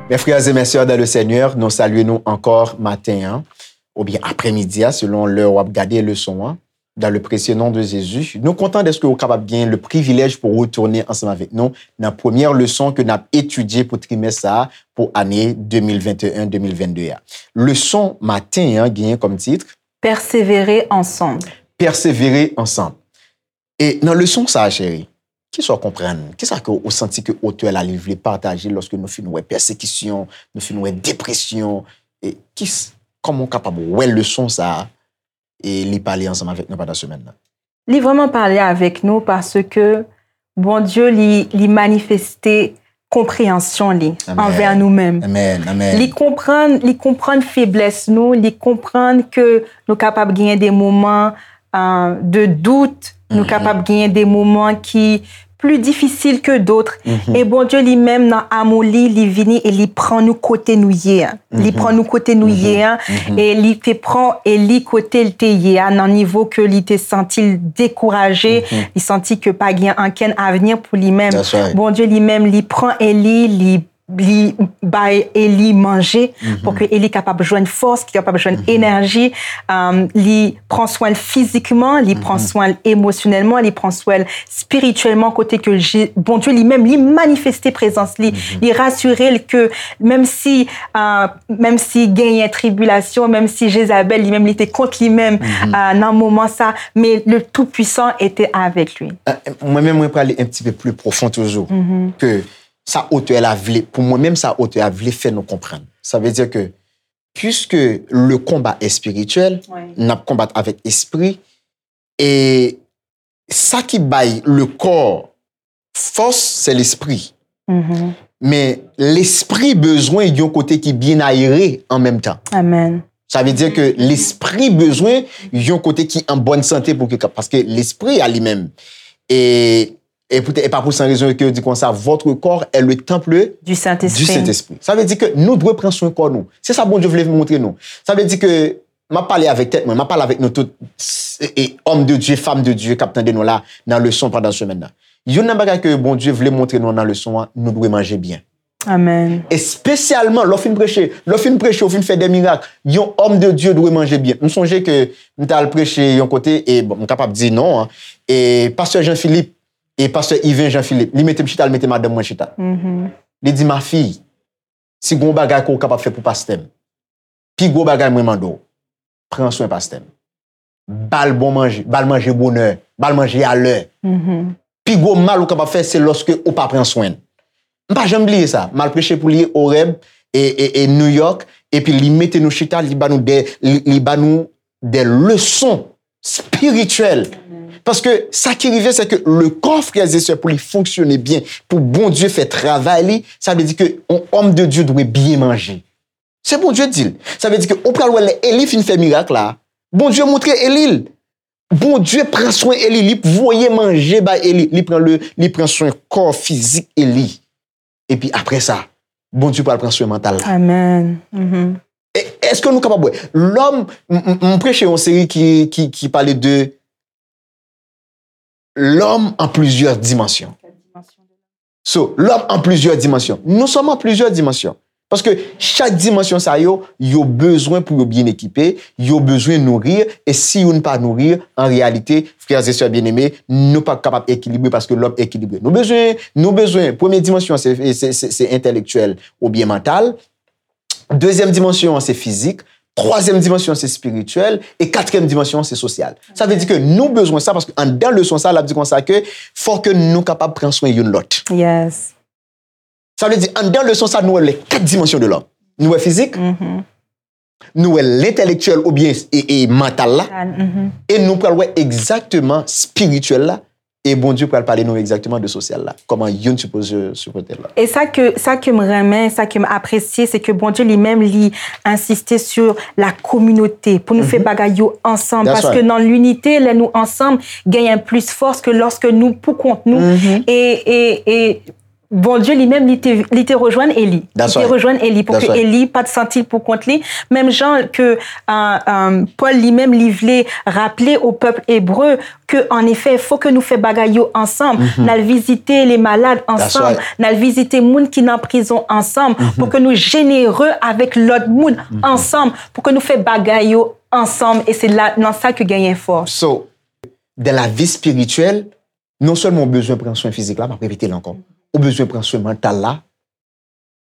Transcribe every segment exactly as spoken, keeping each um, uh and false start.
Mes frères et mes sœurs dans le Seigneur, nou salye nou ankò maten an, oubyen aprèmidi a, selon lè w ap gade leson an. Dans le précieux nom de Jésus, nou kontan dèske ou kapab gen le privilèj pou retounen ansanm avèk nou nan premyè leson ke n ap etidye pou trimès sa a, pou ane de mil venteyen, de mil vennde a. Leson maten an genyen kòm tit, Pèsevere ansanm. Pèsevere ansanm. E nan leson sa a, cheri, kisa w konprann? Kisa ke ou santi ke otè la li vle pataje lòske nou fin wè pèsekisyon, nou fin wè depresyon? E kis, kòman w kapab wè leson sa a e li pale ansanm avèk nou pandan semèn nan? Li vrèman pale avèk nou paske Bondye li, li manifeste konpreyansyon li Amèn. Anvè nou menm. Amèn, amèn. Li konprann, li konprann feblès nou, li konprann ke nou kapab genyen de moman, euh, de dout, nou Mhm. kapab genyen de moman ki pli difisil ke dot. Mhm. E Bondye li menm nan amou li, li vini e li pran nou kote nou ye a. Li Mhm. pran nou kote nou Mhm. ye a, Mhm. e li te pran e li kote l te ye a, nan nivo ke li te santi l dekouraje, Mhm. li santi ke pa gen ankenn avni pou li menm. That's right. Bondye li menm, li pran Eli, li, li bay Eli manje, Mhm. pou ke Eli kapab jwenn fòs, ki kapab jwenn Mhm. enèji. Um, li pran swen l fizikman, li pran Mhm. swen l emosyonèlman, li pran swen l espirityèlman, kote ke Je-, Bondye li menm, li manifeste prezans li, Mhm. li rasire l ke menm si, euh, menm si genyen tribilasyon, menm si Jezabèl li menm li te kont li menm, Mhm. euh, nan moman sa, men le Tout-Puissant était avec lui. Euh, mwen menm, mwen prale un petit peu plus profond toujours, Mhm. ke sa otè la vle, pou mwen menm, sa otè a vle fè nou konprann. Sa vle di ke, puisque le combat est spirituel, Wi. n ap konbat avèk espri, e sa ki bay le corps fòs, se lespri. Mhm. Men lespri bezwen yon kote ki byen ayere an menm tan. Amèn. Sa vle di ke Mhm. lespri bezwen yon kote ki an bòn sante pou ke, paske lespri a li menm, e, e poutèt, e pa pou san rezon ke yo di konsa, votre corps est le temple Du Saint-Esprit. du Saint-Esprit. Sa vle di ke nou dwe pran swen kò nou. Se sa Bondye vle montre nou. Sa vle di ke m ap pale avèk tèt mwen, m ap pale avèk nou tout, e, e, homme de Dieu, femme de Dieu k ap tande nou la nan leson pandan semèn nan. Youn nan bagay ke Bondye vle montre nou nan leson an, nou dwe manje byen. Amèn. Espesyalman lè w fin preche, lè w fin preche, w fin fè de mirak, yon homme de Dieu dwe manje byen. M sonje ke m t al preche yon kote, e bon, m kapab di non an, e pastè Jean Philippe, e pastè Yven Jean Philippe, li mete m chita, li mete madanm mwen chita. Mhm. Li di, ma fille, si gon bagay ke w kapab fè pou pastè m, pi gwo bagay mwen mande w, pran swen pastè m. Ba l bon manje, ba l manje bonè, ba l manje alè. Mhm. Pi gwo mal ou kapab fè, se lòske ou pa pran swen l. M pa janm bliye sa. M al preche pou li Oreb e, e, e New York, epi li mete nou chita, li ba nou de, li, li ba nou de leson spirityèl. Paske sa ki rive, se ke le corps, frères et sœurs, pou li fonksyone byen, pou Bondye fè travay li, sa vle di ke yon homme de Dieu dwe byen manje. Se Bondye di l. Sa vle di ke ou pral wè lè Eli fin fè mirak la, Bondye montre Eli l. Bondye pran swen Eli, li voye manje bay Eli, li pran le, li pran swen kò fizik Eli. Epi apre sa, Bondye pral pran swen mantal la. Amèn. Mhm. E, èske nou kapab wè? Lòm, m, m, m preche yon seri ki, ki, ki pale de l'homme en plusieurs dimensions. So, l'homme en plusieurs dimensions. Nous sommes en plusieurs dimensions. Paske chak dimansyon sa yo, yo bezwen pou yo byen ekipe, yo bezwen nouri, e si youn pa nouri, an reyalite, frères et sœurs bien-aimés, nou p ap kapab ekilibre paske lòm ekilibre. Nou bezwen, nou bezwen, premye dimansyon an se, se, se, se entèlektyèl oubyen mantal, dezyèm dimansyon an se fizik, twazyèm dimansyon an se espirityèl, e katriyèm dimansyon an se sosyal. Sa vle di ke nou bezwen sa paske anndan leson sa, l ap di konsa ke fò ke nou kapab pran swen youn lòt. Yes. Sa vle di, anndan leson sa, nou wè les quatre dimensions de l'homme. Nou wè fizik, Mhm. nou wè lentelektyèl oubyen e, e mantal la, Mental, mhm. e nou pral wè egzakteman espirityèl la, e Bondye pral pale nou egzakteman de sosyal la. Kòman youn sipoze sipòte lòt. E sa ke, sa ke m renmen, sa ke m apresye, se ke Bondye li menm, li ensiste sur la communauté, pou nou fè Mhm. bagay yo ansanm, That's paske right. nan linite, lè nou ansanm, genyen plis fòs ke lòske nou pou kont nou. Mhm. E, e, e Bondye li menm, li te, li te rejwenn Eli. Li te rejwenn Eli pou ke Eli pa t santi l pou kont li. Menm jan ke, euh, euh, Pòl li menm, li vle raple o pèp ebre ke, an efè, fò ke nou fè bagay yo ansanm. N al vizite le malad ansanm. N al vizite moun ki nan prizon ansanm. Pou ke nou jenere avèk lòt moun ansanm. Pou ke nou fè bagay yo ansanm. E se la, nan sa ke genyen fòs. So, dans la vie spirituelle, non sèlman ou bezwen pran swen fizik la, m ap repete l ankò, ou bezwen pran swen mantal la,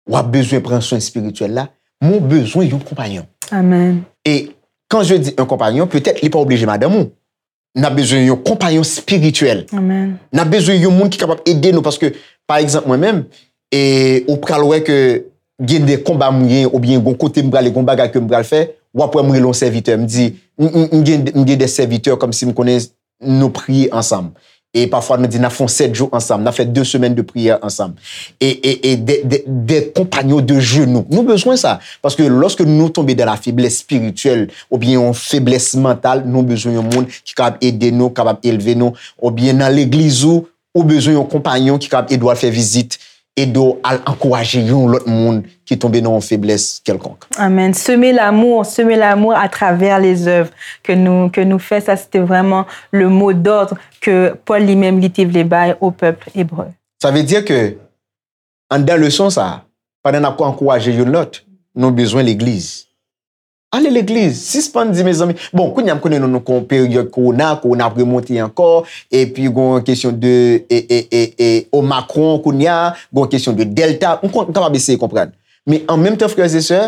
w ap bezwen pran swen espirityèl la, men ou bezwen yon konpayon. Amen. Et quand je dis un compagnon, peut-être li pa oblije madanm ou. N ap bezwen yon konpayon espirityèl. Amen. N ap bezwen yon moun ki kapab ede nou, paske, pa egzanp, mwen menm, e ou pral wè ke gen de konba mwen, oubyen gon kote m prale, gon bagay ke m pral fè, w ap wè m rele yon sèvitè, m di, m, m, m gen, m gen de sèvitè kòmsi m konnen nou priye ansanm. E pafwa nou di n ap fè yon sèt jou ansanm, n ap fè de semèn de priyè ansanm. E, e, e de, de, de konpayon de jenou. Nou bezwen sa. Paske lòske nou tonbe dans la faiblesse spirituelle, oubyen yon feblès mantal, nou bezwen yon moun ki kapab ede nou, kapab elve nou, oubyen nan legliz ou, ou bezwen yon konpayon ki kapab ede w al fè vizit, ede w al ankouraje yon lòt moun ki tonbe nan yon feblès kèlkonk. Amen. Semer l'amour, semer l'amour à travers les œuvres que nous, que nous fait, ça c'était vraiment le mot d'ordre que Paul lui-même li te vle bay au peuple hébreu. Sa vle di ke, anndan leson sa, pandan n ap ankouraje youn lòt, nou bezwen legliz. Ale legliz, sispann di, mezanmi. Bon, kounye a m konnen nou, nou kon peryòd kowona, kowona ap remonte ankò, epi gon kesyon de, e, e, e, e, Omicron kounye a, gon kesyon de Delta, m kon, m kapab eseye konprann. Men an menm tan, frè e sè,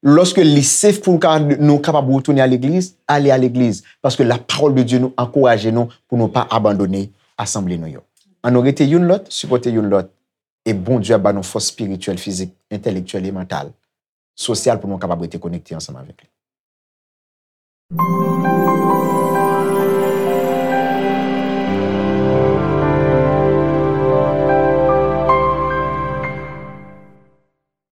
lòske li safe pou ka, nou kapab retounen a legliz, ale a legliz. Paske la parole de Dieu nou ankouraje nou pou nou pa abandone asanble nou yo. Ann nou rete youn lòt, sipòte youn lòt, e Bondye ap ba nou fòs espirityèl, fizik, entèlektyèl e mantal, sosyal pou nou kapab rete konekte ansanm avèk li.